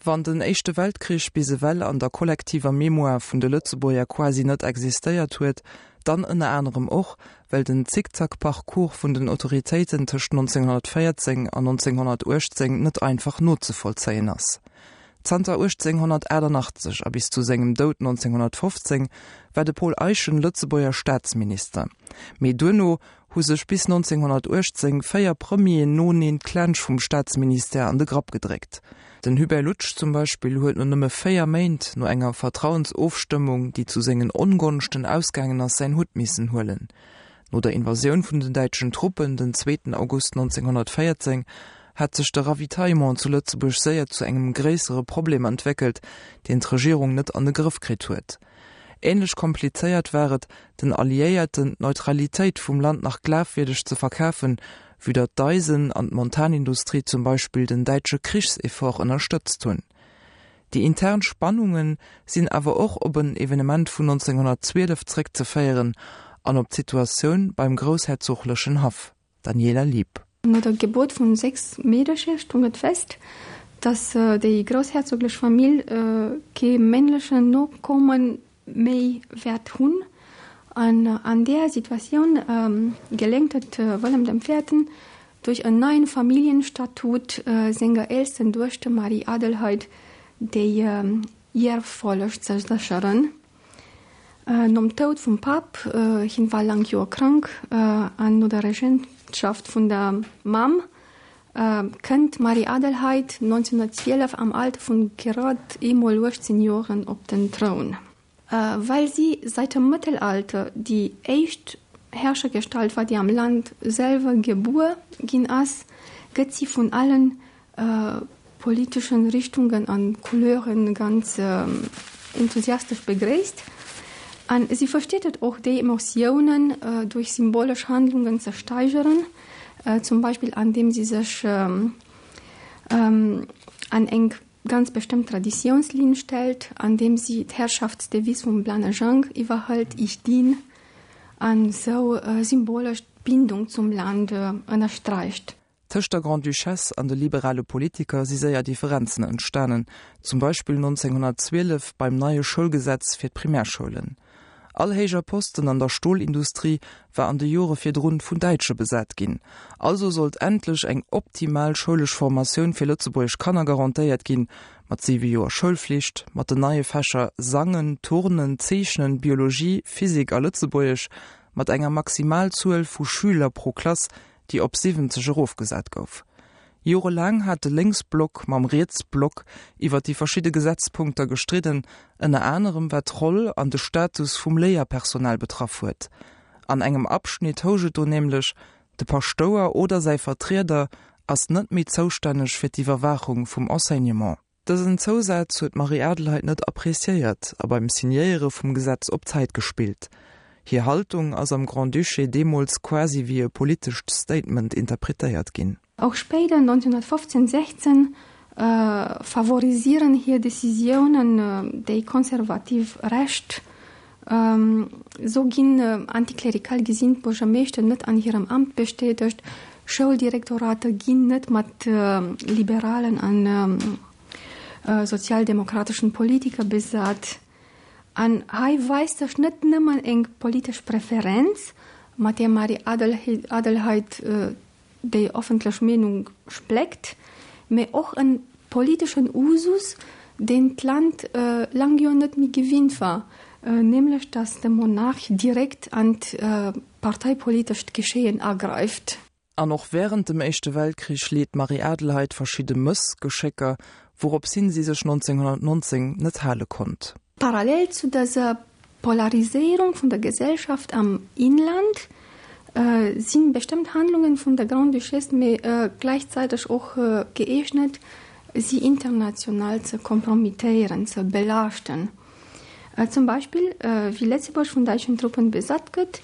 Wann den Éischte Weltkrich bis ewell an der kollektiver Mémoire vun de Lëtzebuerger quasi net existéiert huet, dann ënner anerem och, well den Zickzack-Parcours vun den Autoritéiten tëscht 1914 an 1918 net einfach nozevollzéien ass. Zanter 1888 a bis zu sengem Doud 1915 war de Paul Eyschen Lëtzebuerger Staatsminister, mee duerno hu sech bis 1918 véier Premieren noeneen d'Klensch vum Staatsministère an de Grapp gedréckt. Den Hubert Loutsch zum Beispill huet no nëmme véier Méint, no enger Vertrauensofstëmmung, déi zu sengen Ongonschten ausgaangen ass, säin Hutt missen huelen. No der Invasioun vun den däitschen Truppen den zweeten August 1914 hat sech de Ravitaillement zu Lëtzebuerg séier zu engem gréissere Problem entwéckelt, deen d'Regierung net an de Grëff kritt huet. Ähnlech komplizéiert war et, den Alliéierten d'Neutralitéit vum Land nach glafwierdeg ze verkafen, vue datt d'Eisen an d'Montanindustrie zum Beispill den däitsche Krichseffort ënnerstëtzt hunn. Déi intern Spannunge sinn awer och op en Evenement vun 1912 zréckzeféieren an op d'Situatioun beim groussherzoglechen Haff. Daniela Lieb. No der Gebuert vun 6 Meedercher stoung et fest, datt déi groussherzoglech Famill kee männlechen Nokomme méi wäert hunn. An an där Situatioun geléngt et Wëllem dem Véierten, duerch en neien Familljenstatut senger eelsten Duechter Marie-Adelheid déi Ierffolleg ze sécheren. Nom Toud vum Papp, hien war laang Joer krank, an no der Regentschaft vun der Mamm kënnt d'Marie-Adelheid 1912 am Alter vun grad eemol 18 Joren op den Troun. Well si seit dem Mëttelalter déi éischt Herrschergestalt war, déi am Land selwer gebuer ginn ass, gëtt si vun allen politeschen Richtungen an Couleuren ganz enthusiastesch begréisst. An si versteet et och, déi Emotiounen duerch symbolesch Handlungen ze steigeren, zum Beispill andeem si sech an eng ganz bestëmmt Traditiounslinn stellt, andeem si d'Herrschaftsdevise vum Blanne Jang iwwerhëlt, Ich dien, an esou symbolesch d'Bindung zum Land ënnersträicht. Tëscht der Grande-Duchesse an de liberale Politiker si séier Differenzen entstanen, zum Beispill 1912 beim neie Schoulgesetz fir d'Primärschoulen. All héijer Posten an der Stolindustrie war an de Jore virdrun vun Däitsche besat ginn. Also sollt endlech eng optimal schoulesch Formatioun fir lëtzebuergesch Kanner garantéiert ginn, mat siwe Joer Schoulflicht, mat den neie Fächer Sangen, Turnen, Zeechnen, Biologie, Physik a Lëtzebuergesch, mat enger Maximalzuel vu Schüler pro Klass, déi op 70 erofgesat gouf. Jorelaang hat de Lénksblock mam Rietsblock iwwer déi verschidde Gesetzpunkter gestridden, ënner anerem wat d'Roll an de Status vum Léierpersonal betraff huet. An engem Abschnitt housch et do nämlech, de Paschtouer oder säi Vertrieder ass net méi zoustänneg fir d'Iwwerwaachung vum Enseignement. Dësen Zousaz huet d'Marie-Adelheid net appreciéiert a beim Signéiere vum Gesetz op Zäit gespillt. Hir Haltung ass am Grand-Duché deemools quasi wéi e politescht Statement interpretéiert ginn. Och spéider, 1915, 16, favorisieren hir Decisiounen déi konservativ Recht. Sou ginn antiklerikal gesinnt Buergermeeschter net an hirem Amt bestätegt, Schouldirektorater ginn net mat liberalen an sozialdemokrateschen Politiker besat. An hei weist sech net nëmmen eng politesch Preferenz, mat där Marie-Adelheid déi offentlech Meenung spléckt, mee och en politeschen Usus, deen d'Land laang jo net méi gewinnt war, nämlech datt de Monarch direkt an d'parteipolitescht Geschéien agräift. An och wärend dem Éischte Weltkrich leet d'Marie-Adelheid verschidde Mëssgeschécker, wourops hin si sech 1919 net hale konnt. Parallel zu dëser Polariséierung vun der Gesellschaft am Inland si bestëmmt Handlungen vun der Grande-Duchesse mee gläichzäiteg och gëeegnet, si international ze kompromittéieren, ze belaaschten. Zum Beispill wéi Lëtzebuerg vun däitschen Truppen besat gëtt,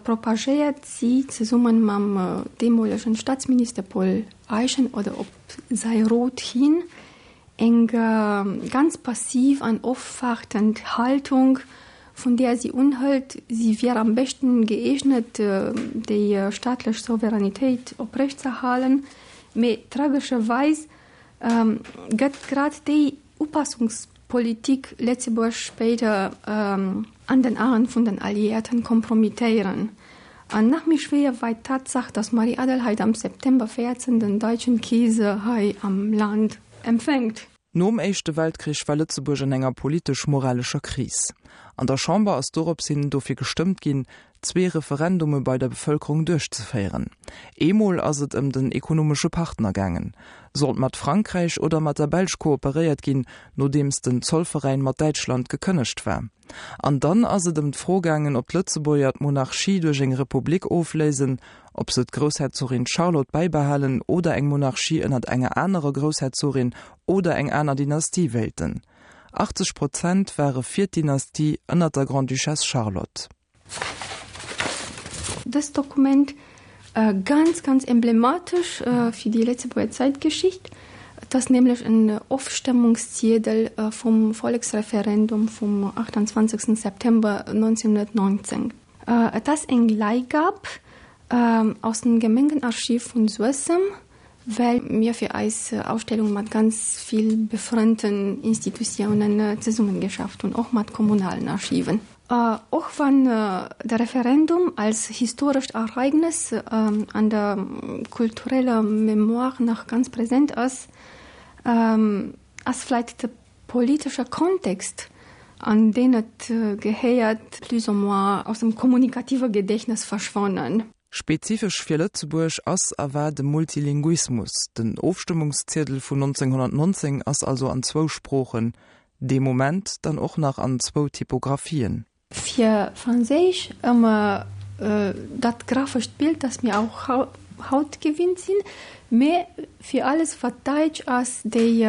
propagéiert si zesumme mam deemolegen Staatsminister Paul Eyschen oder op säi Rot hin Eng ganz passiv an ofwaartend Haltung, vun där si unhëlt, si wier am beschten gëeegnet, déi staatlech Souveränitéit oprecht z'erhalen. Mee tragescherweis gëtt grad déi Upassungspolitik Lëtzebuerg spéider an den Aen vun den Alliéierten kompromittéieren. An nach méi schwéier weit d'Tatsaach, datt Marie-Adelheid am September 14 den deutschen Keeser hei am Land empfänkt. Nom Éischte Weltkrich war Lëtzebuerg an enger politesch-moralescher Kris. An der Chamber ass dorops hin dofir gestëmmt ginn, zwee Referendume bei der Bevëlkerung duerchzeféieren. Eemol ass et ëm den ekonomesche Partner gaangen. Sollt mat Frankräich oder mat der Belsch kooperéiert ginn, nodeems den Zollveräin mat Däitschland gekënnegt war? An dann ass et ëm d'Fro gaangen, ob d'Lëtzebuerger d'Monarchie duerch eng Republik ofléisen, ob se d'Groussherzogin Charlotte bäibehalen oder eng Monarchie ënnert enger anerer Groussherzogin oder eng aner Dynastie wéilten. 80 Prozent ware fir d'Dynastie ënnert der Grande-Duchesse Charlotte. Dëst Dokument, ganz, ganz emblematesch fir déi Lëtzebuerger Zäitgeschicht, et ass nämlech en Ofstëmmungsziedel vum Volleksreferendum vum 28 September 1919. Et ass eng Leihgab aus dem Gemengenarchiv vun Suessem, well mir fir eis Ausstellung mat ganz vill befrënnten Institutiounen zesummengeschafft hunn, och mat kommunalen Archiven. Och wann de Referendum als historescht Ereignes an der kultureller Mémoire nach ganz present ass, ass vläit de politesche Kontext, an deen et gehéiert, plus ou moins aus dem kommunikative Gedächtnis verschwonnen. Spezifesch fir Lëtzebuerg ass a war de Multilinguismus. Den Ofstëmmungsziedel vun 1919 ass also an zwou Sproochen, dee Moment dann och nach an zwou Typographien. Fir Franséisch ëmmer dat graphescht Bild, dat mir och haut gewinnt sinn, mä fir alles wat däitsch ass, déi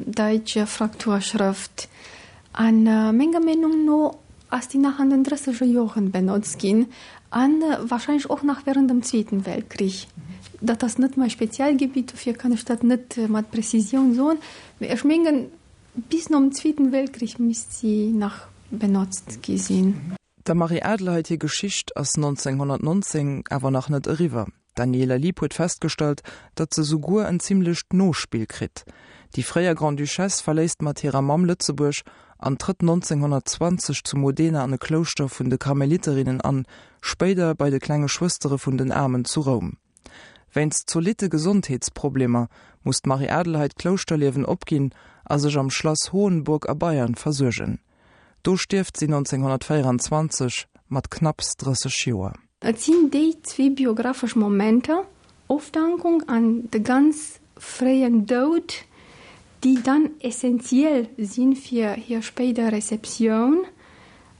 däitsch Frakturschrëft. A menger Meenung no ass déi nach an den drësseger Joren benotzt ginn a warscheinlech och nach während dem Zweeten Weltkrich. Dat ass net mäi Spezialgebitt, dofir kann ech dat net mat Prezisioun soen, mä ech mengen, Bis nom Zweeten Weltkrich misst si nach benotzt gi sinn. Der Marie-Adelheid hir Geschicht ass 1919 awer nach net eriwwer. D'Daniela Lieb huet festgestallt, datt se souguer en zimmlecht Nospill kritt. Déi fréier Grande-Duchesse verléisst mat hirer Mamm Lëtzebuerg an trëtt 1920 zu Modena an e Klouschter vun de Karmeliterinnen an, spéider bei de Klenge Schwëstere vun den Aarmen zu Roum. Wéinst zolitte Gesondheetsproblemer muss d'Marie-Adelheid d'Klouschterliewen opginn a sech am Schlass Hohenburg a Bayern versuergen. Do stierft si 1924 mat knapps 30 Joer. Et sinn déi zwee biographesch Momenter, Ofdankung an de ganz fréien Doud, déi dann essentiell si fir hir spéider Receptioun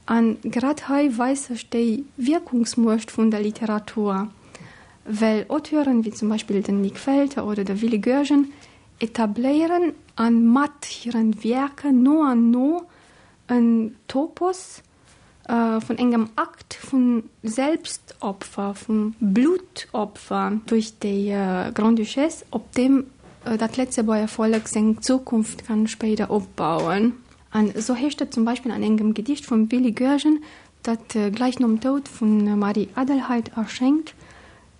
A grad hei weist sech déi Wierkungsmuecht vun der Literatur, well Auteuren wéi zum Beispill den Nik Welter oder de Willy Goergen etabléieren a mat hiren Wierker no an no en Topos vun engem Akt vu Selbstopfer, vum Bluttopfer duerch déi Grande-Duchesse, op deem dat Lëtzebuerger Vollek seng Zukunft kann spéider opbauen. An esou heescht et zum Beispill an engem Gedicht vum Willy Goergen, dat gläich nom Doud vun Marie Adelheid erschéngt,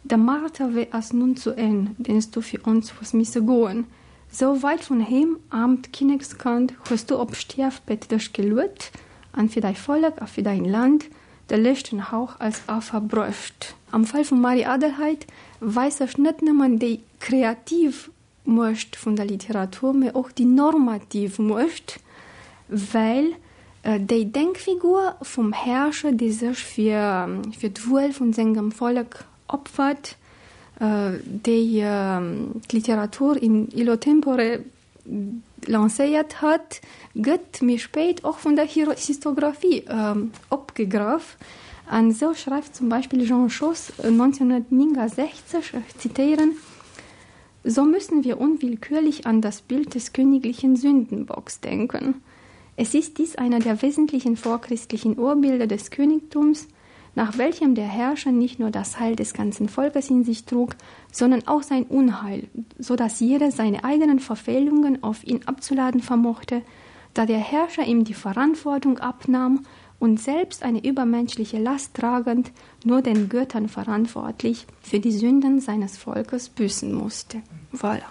De Marterwee ass nun zu Enn, deen s du fir ons hues misse goen. Sou weit vun heem, aarmt Kinnekskand, hues du op Stierfbett dech geluet an fir däi Vollek a fir däin Land de leschten Hauch als Affer bruecht. Am Fall vum Marie Adelheid weist sech net nëmmen déi kreativ Muecht vun der Literatur, mee och déi normativ Muecht, well déi Denkfigur vum Herrscher, dee sech fir fir d'Wuel vun sengem Vollek opfert, déi d'Literatur in illo tempore lancéiert hat, gëtt méi spéit och vun der Histographie opgegraff. An esou schreift zum Beispill Jean Schoos 1969, ech zitéieren, So müssen wir unwillkürlich an das Bild des königlichen Sündenbocks denken. Es ist dies einer der wesentlichen vorchristlichen Urbilder des Königtums, nach welchem der Herrscher nicht nur das Heil des ganzen Volkes in sich trug, sondern auch sein Unheil, so dass jeder seine eigenen Verfehlungen auf ihn abzuladen vermochte, da der Herrscher ihm die Verantwortung abnahm und selbst eine übermenschliche Last tragend nur den Göttern verantwortlich für die Sünden seines Volkes büßen musste. Voilà.